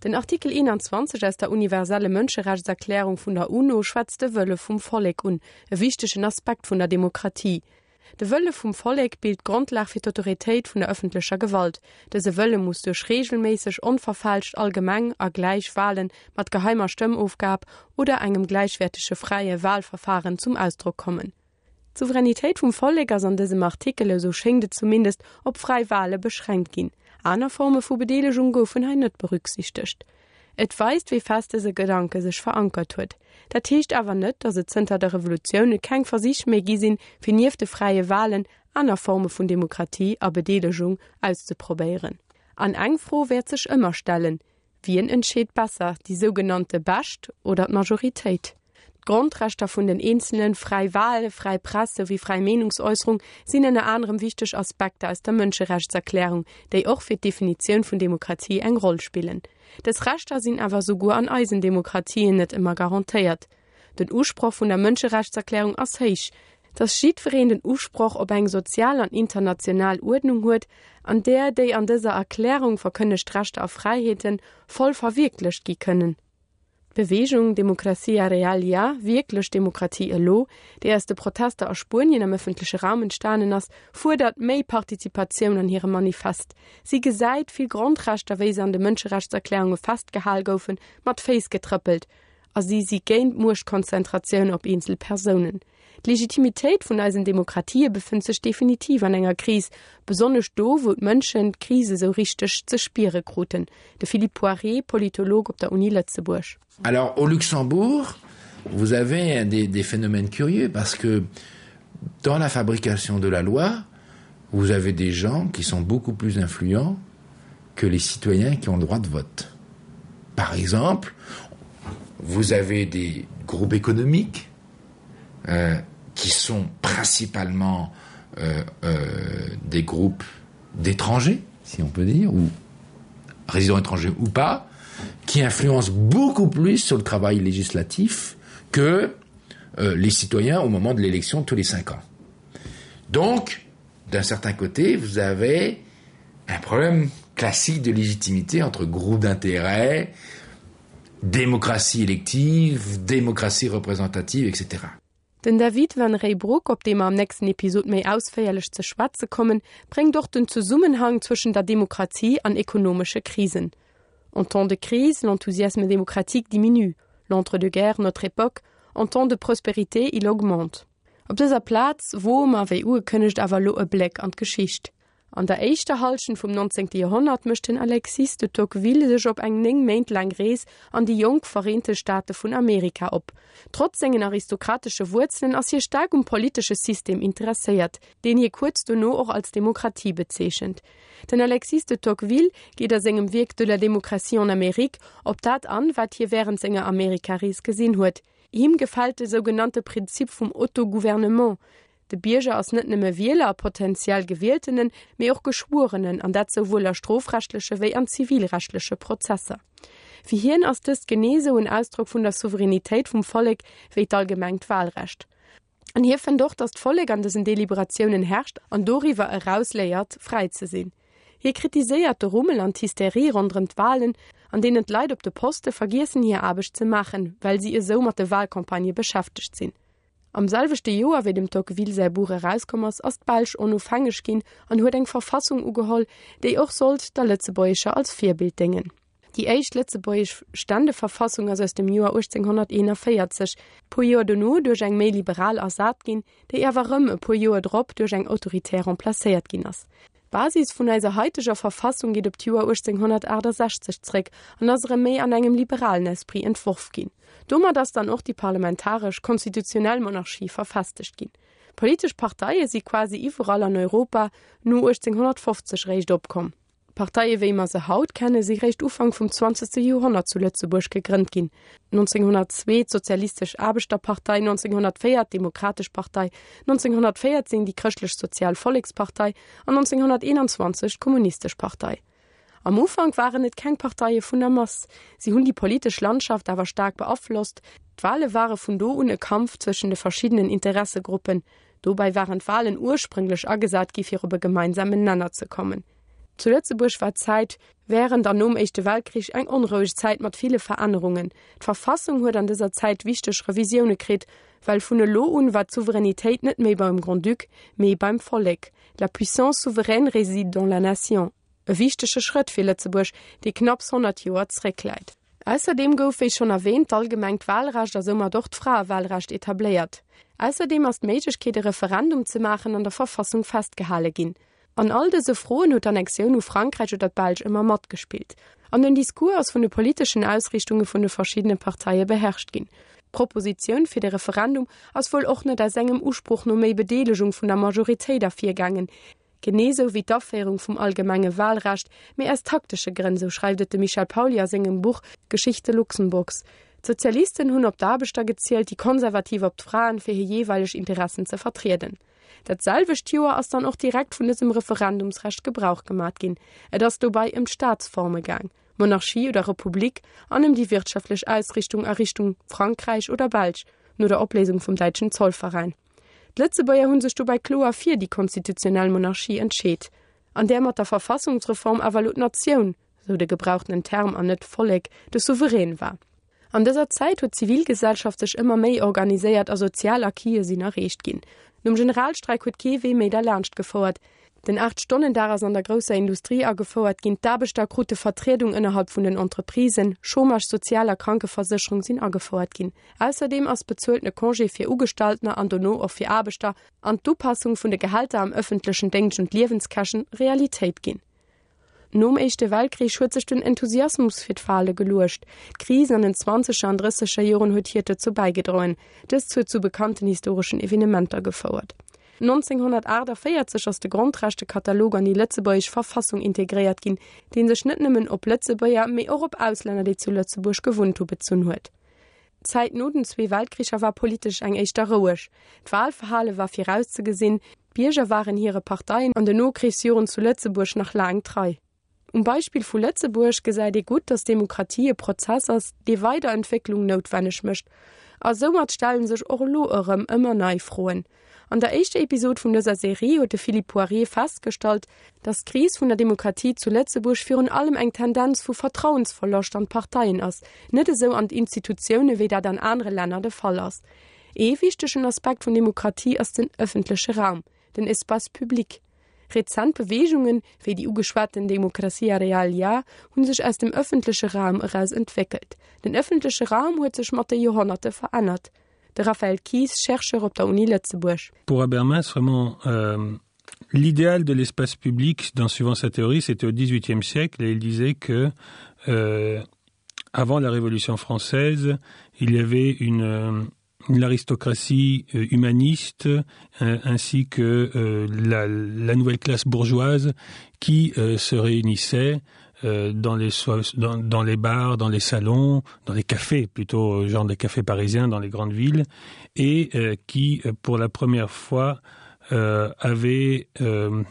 Den Artikel 21 aus der universelle Mënscherechtserklärung vun der UNO schwätzt de Wëlle vum Vollek un, e wichtegen Aspekt vun der Demokratie. De Wëlle vum Vollek bilt d'Grondlag fir d'Autoritéit vun der ëffentlecher Gewalt. Dëse Wëlle muss duerch reegelméisseg, onverfälscht, allgemeng a gläich Wale mat geheimer Stëmmofgab oder engem gläichwäertege fräie Walverfaren zum Ausdrock kommen. D'Souveränitéit vum Vollek ass an dësem Artikel, esou schéngt et zumindest, op fräi Wale beschränkt ginn. Aner Forme vu Bedeelegung goufen hei net berücksichtegt. Et weist, wéi fest dëse Gedanke sech verankert huet. Dat heescht awer net, datt et zënter der Revolutioun keng Versich méi gi sinn, fir nieft de fräie Walen aner Forme vun Demokratie a Bedeelegung auszeprobéieren. An eng Fro wäert sech ëmmer stellen, Wien entscheet besser, déi sougenannte Bescht oder d'Majoritéit? D'Grondrechter vun den Eenzelen, fräi Wal, fräi Press souwéi fräi Meenungsäusserung sinn ënner anerem wichteg Aspekter aus der Mënscherechtserklärung, déi och fir d'Definitioun vun Demokratie eng Roll spillen. Dës Rechter sinn awer souguer an eisen Demokratien net ëmmer garantéiert. Den Usproch vun der Mënscherechtserklärung ass héich, dass jiddwereen den Usproch op eng sozial an international Uerdnung huet, an där déi an dëser Erklärung verkënnegt Rechter a Fräiheete voll verwierklecht gi kënnen. D'Beweegung Democracia Real Ya, Wierklech Demokratie elo, déi aus de Protester a Spuenien am ëffentleche Raum entstanen ass, fuerdert méi Participatioun an hirem Manifest. Si gesäit vill Grondrechter, wéi se an de Mënscherechtserklärunge festgehal goufen, mat Féiss getrëppelt a si si géint Muechtkonzentratioun op eenzel Persounen. D'Legitimitéit vun eisen Demokratië befënnt sech definitiv an enger Kris, besonnesch do, wou d'Mënschen d'Kris esou richteg ze spiere kruten. De Philippe Poiré, Politolog op der Uni Lëtzebuerg. Alors au Luxembourg, vous avez des, des phénomènes curieux parce que dans la fabrication de la loi, vous avez des gens qui sont beaucoup plus influents que les citoyens qui ont le droit de vote. Par exemple, vous avez des groupes économiques euh, qui sont principalement euh, euh, des groupes d'étrangers, si on peut dire, ou résidents étrangers ou pas, qui influencent beaucoup plus sur le travail législatif que euh, les citoyens au moment de l'élection tous les cinq ans. Donc, d'un certain côté, vous avez un problème classique de légitimité entre groupes d'intérêt, démocratie élective, démocratie représentative, etc. Den David Van Reybrouck, op dee mer am nächsten Episod méi ausféierlech ze schwätze kommen, bréngt och den Zesummenhang zwëschen der Demokratie an ekonomesche Krisen. En temps de crise, l'enthousiasme démocratique diminue, l'entre-deux-guerres, notre époque, en temps de prospérité, il augmente. Op dëser Plaz woe mer, wéi ugekënnegt, awer elo e Bléck an d'Geschicht. An der éischter Hallschent vum 19. Joerhonnert mécht den Alexis de Tocqueville sech op eng 9 Méint laang Rees an déi jonk Vereente Staate vun Amerika op. Trotz sengen aristokratesche Wuerzelen ass hie staark um politesche System interesséiert, deen hie kuerz dono och als Demokratie bezeechent. Den Alexis de Tocqueville geet a sengem Wierk De la démocratie en Amérique op dat an, wat hie wärend senger Amerikarees gesinn huet. Him gefält de sougenannte Prinzip vum Autogouvernement, De Bierger ass net nëmme Wieler a potentiell Gewieltenen, mee och Geschwuerenen, an dat souwuel a strofrechtleche wéi an zivilrechtleche Prozesser. Fir hien ass dëst genee esou en Ausdrock vun der Souveränitéit vum Vollek wéi d'allgemengt Wahlrecht. An hie fënnt och, datt d'Vollek an dësen Deliberatiounen herrscht an doriwwer eraus léiert, fräi ze sinn. Hie kritiséiert de Rummel an d'Hysterie ronderëm d'Wahlen, an deenen d'Leit op de Poste vergiessen hir Aarbecht ze maachen, well si esou mat de Wahlcampagnë beschäftegt sinn. Am selwechte Joer, wéi dem Tocqueville säi Buch erauskomm ass, ass d'Belsch onofhängeg ginn an huet eng Verfassung ugeholl, déi och sollt der lëtzebuergescher als Virbild déngen. Déi éischt lëtzebuergesch Ständeverfassung ass aus dem Joer 1841, puer Joer dono duerch eng méi liberal ersat ginn, déi awer erëm e puer Joer drop duerch eng autoritär remplacéiert ginn ass. D'Basis vun eiser haiteger Verfassung geet op d'Joer 1868 zréck an ass erëm méi an engem liberalen Esprit entworf ginn. Domat ass dann och déi parlamentaresch, konstitutionell Monarchie verfestegt ginn. Politesch Parteie si quasi iwwerall an Europa no 1850 réischt opkomm. D'Parteie wéi mer se haut kenne si réischt Ufank vum zwanzegste Joerhonnert zu Lëtzebuerg gegrënnt ginn, 1902 d'Sozialistesch Aarbechterpartei, 1904 d'Demokratesch Partei, 1914 déi Chrëschtlech-Sozial Vollekspartei an 1921 d'Kommunistesch Partei. Am Ufank waren et keng Parteie vun der Mass, si hunn déi politesch Landschaft awer staark beaflosst. D'Wale ware vun do un e Kampf zwëschen de verschiddenen Interessegruppen. Dobäi waren d'Walen ursprünglech agesat gi fir op e gemeinsamen Nenner ze kommen. Zu Lëtzebuerg war d'Zäit wärend an nom Éischte Weltkrich eng onroueg Zäit mat ville Verännerungen. D'Verfassung huet an dëser Zäit wichteg Revisioune kritt, well vun elo un war d'Souveränitéit net méi beim Grand-Duc, mee beim Vollek, La puissance souveraine réside dans la nation. E wichtege Schrëtt fir Lëtzebuerg, dee knapps 100 Joer zréckläit. Ausserdeem gouf, wéi schonn erwähnt, d'allgemengt Wahlrecht a soumat och d'Fraewahlrecht etabléiert. Ausserdeem ass d'Méiglechkeet, e Referendum ze maachen, an der Verfassung festgehale ginn. An all dëse Froen huet d'Annexioun u Frankräich oder d'Belsch ëmmer matgespillt. An den Discours ass vun de politeschen Ausriichtunge vun de verschiddene Parteie beherrscht ginn. D'Propositioun fir de Referendum ass wuel och net aus engem Usproch no méi Bedeelegung vun der Majoritéit ervirgaangen, genee sou wéi d'Aféierung vum allgemenge Wahlrecht, mee aus taktesche Grënn, sou schreift et de Michel Pauly a sengem Buch Geschichte Luxemburgs. D'Sozialisten hunn op d'Aarbechter gezielt, déi Konservativ op d'Fraen, fir hir jeeweileg Interessen ze vertrieden. Dat selwecht Joer ass dann och direkt vun dësem Referendumsrecht Gebrauch gemat ginn. Et ass dobei ëm d'Staatsforme gaang, Monarchie oder Republik, an ëm déi wirtschaftlech Ausrichtung a Richtung Frankräich oder Belsch, no der Opléisung vum däitschen Zollveräin. D'Lëtzebuerger hu sech dobäi kloer fir déi konstitutionell Monarchie entscheet, an där mat der Verfassungsreform awer elo d'Natioun, sou de gebrauchtenen Term an net d'Vollek, de Souverän war. An dëser Zäit huet d'Zivilgesellschaft sech ëmmer méi organiséiert a sozial Acquise sinn erreecht ginn. Nom Generalstreik huet kee Wee méi derlaanscht gefouert. Den Aacht-Stonnen-Dag ass an der grousser Industrie agefouert ginn, d'Aarbechter krute Vertriedung ënnerhalb vun den Entreprisen, Chômage, Sozial a Krankeversécherung sinn agefouert ginn. Ausserdeem ass bezueltene Congé fir Ugestalltener an dono och fir Aarbechter an d'Upassung vun de Gehälter am ëffentlechen Déngscht un d'Liewenskäschen Realitéit ginn. Nom Éischte Weltkrich huet sech den Enthusiasmus fir d'Wale geluecht. D'Kris an den zwanzeger an drësseger Joren huet hiert dozou bäigedroen. Dëst huet zu bekannten historeschen Evenementer gefouert. 1948 ass de Grondrechtekatalog an déi lëtzebuergesch Verfassung integréiert ginn, dee sech net nëmmen op Lëtzebuerger, mee och op Auslänner, déi zu Lëtzebuerg gewunnt hu bezunn huet. D'Zäit no den zwee Weltkricher war politesch eng éischter roueg. D'Walverhale war virauszegesinn, d'Bierger waren hire Parteien an den Nokrichsjoren zu Lëtzebuerg nach laang trei. Um Beispill vu Lëtzebuerg gesäit ee gutt, datt Demokratie e Prozess ass, dee Weiderentwécklung noutwenneg mécht. A soumat stelle sech och elo erëm ëmmer nei Froen. An der éischter Episod vun dëser Serie huet de Philippe Poirier festgestallt, datt d'Kris vun der Demokratie zu Lëtzebuerg virun allem eng Tendenz vu Vertrauensverloscht an d'Parteien ass, net esou an d'Institutioune wéi dat an anere Länner de Fall ass. Ee wichtegen Aspekt vun Demokratie ass den ëffentleche Raum, den Espace public. Rezent Beweegungen, wéi déi ugeschwaten Democracia Real Ya, hu sech aus dem ëffentleche Raum eraus entwéckelt. Den ëffentleche Raum huet sech mat de Joerhonnerte verännert. De Raphaël Kies, Chercheur op der Uni Lëtzebuerg. Pour Habermas vraiment euh, l'idéal de l'espace public dans suivant sa théorie c'était au XVIIIe siècle et il disait que euh, avant la Révolution française il y avait une euh, l'aristocratie euh, humaniste euh, ainsi que euh, la, la nouvelle classe bourgeoise qui euh, se réunissait euh, dans les dans, dans les bars dans les salons dans les cafés plutôt euh, genre des cafés parisiens dans les grandes villes et euh, qui euh, pour la première fois euh, avait euh,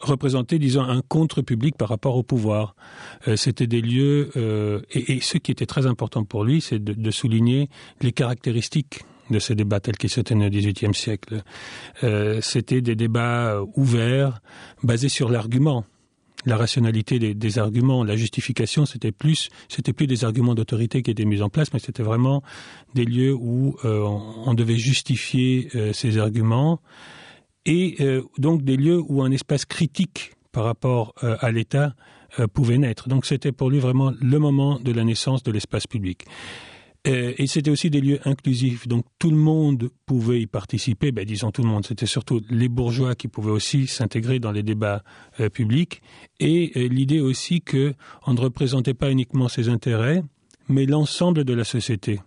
représenté disons un contre-public par rapport au pouvoir euh, c'était des lieux euh, et, et ce qui était très important pour lui c'est de, de souligner les caractéristiques de ces débats tels qu'ils se tenaient au XVIIIe siècle euh, c'était des débats euh, ouverts basés sur l'argument la rationalité des, des arguments la justification c'était plus c'était plus des arguments d'autorité qui étaient mis en place mais c'était vraiment des lieux où euh, on, on devait justifier euh, ces arguments et euh, donc des lieux où un espace critique par rapport euh, à l'état euh, pouvait naître donc c'était pour lui vraiment le moment de la naissance de l'espace public euh, et c'était aussi des lieux inclusifs donc tout le monde pouvait y participer ben, disons tout le monde c'était surtout les bourgeois qui pouvaient aussi s'intégrer dans les débats euh, publics et euh, l'idée aussi que on ne représentait pas uniquement ses intérêts mais l'ensemble de la société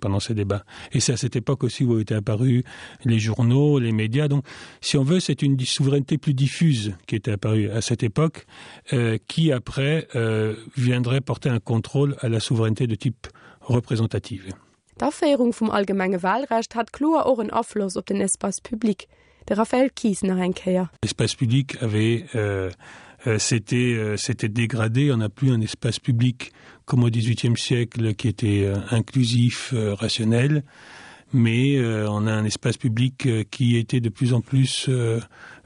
pendant ces débats. Et c'est à cette époque aussi où étaient apparus les journaux, les médias. Donc, si on veut, c'est une souveraineté plus diffuse qui était apparue à cette époque, euh, qui après euh, viendrait porter un contrôle à la souveraineté de type représentative. D'Aféierung vum allgemenge Wahlrecht hat kloer och en Afloss op den Espace public. De Raphaël Kies nach eng Kéier. L'espace public avait euh, euh, s'était euh, s'était dégradé, on n'a plus un espace public comme au XVIIIe siècle qui était euh, inclusif, euh, rationnel. Mais euh, on a un espace public euh, qui était de plus en plus euh,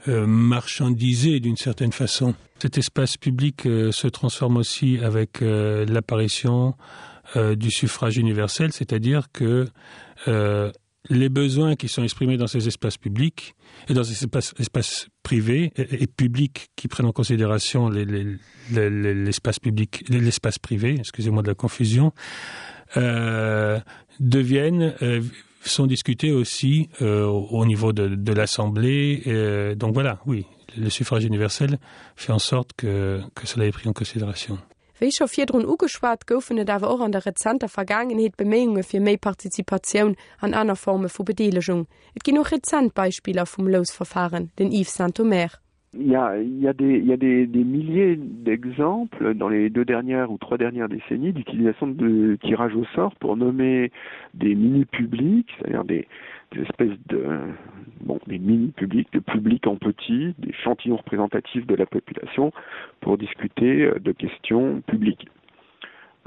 euh, marchandisé d'une certaine façon. Cet espace public euh, se transforme aussi avec euh, l'apparition euh, du suffrage universel, c'est-à-dire que euh, les besoins qui sont exprimés dans ces espaces publics et dans ces espaces, espaces privés et, et publics qui prennent en considération l'espace public l'espace privé excusez-moi de la confusion euh, deviennent euh, sont discutés aussi euh, au niveau de, de l'assemblée euh, donc voilà oui le suffrage universel fait en sorte que, que cela est pris en considération. Wéi scho virdrun ugeschwat, goufen et awer och an der rezenter Vergaangenheet Beméiunge fir méi Participatioun an aner Forme vu Bedeelegung. Et ginn och rezent Beispiller vum Lousverfahren, den Yves Sintomer. Il y a, il y a, des, il y a des, des milliers d'exemples dans les deux dernières ou trois dernières décennies d'utilisation de tirage au sort pour nommer des mini-publics, c'est-à-dire des, des espèces de bon, des mini-publics, de publics en petit, des chantillons représentatifs de la population pour discuter euh, de questions publiques.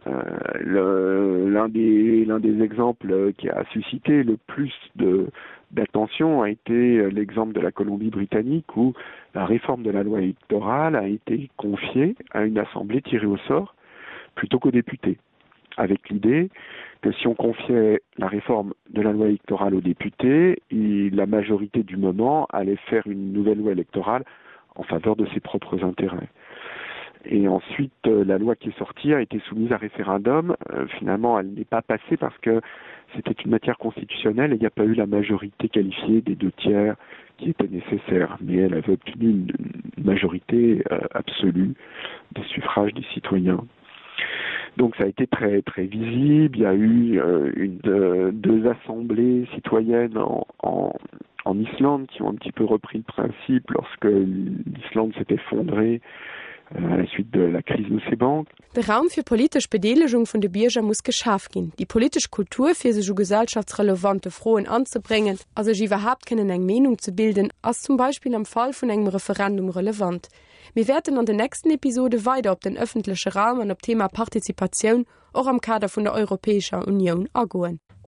Euh, l'un des, des exemples qui a suscité le plus d'attention a été euh, l'exemple de la Colombie-Britannique où la réforme de la loi électorale a été confiée à une assemblée tirée au sort plutôt qu'aux députés avec l'idée que si on confiait la réforme de la loi électorale aux députés, il, la majorité du moment allait faire une nouvelle loi électorale en faveur de ses propres intérêts. Et ensuite, euh, la loi qui est sortie a été soumise à référendum. Euh, finalement, elle n'est pas passée parce que c'était une matière constitutionnelle et il n'y a pas eu la majorité qualifiée des deux tiers qui était nécessaire. Mais elle avait obtenu une majorité euh, absolue des suffrages des citoyens. Donc ça a été très très visible. Il y a eu euh, une, euh, deux assemblées citoyennes en, en, en Islande qui ont un petit peu repris le principe lorsque l'Islande s'est effondrée euh, à la suite de la crise de ses banques. De Raum fir politesch Bedeelegung vun de Bierger muss geschaf ginn. Déi politesch Kultur, fir sech u gesellschaftsrelevante Froen anzebréngen a sech iwwerhaapt kënnen eng Meenung ze bilden, ass zum Beispill am Fall vun engem Referendum relevant. Mir wäerten an den nächsten Episode weider op den ëffentleche Raum an op d'Thema Partizipatioun, och am Kader vun der Europäescher Unioun, agoen.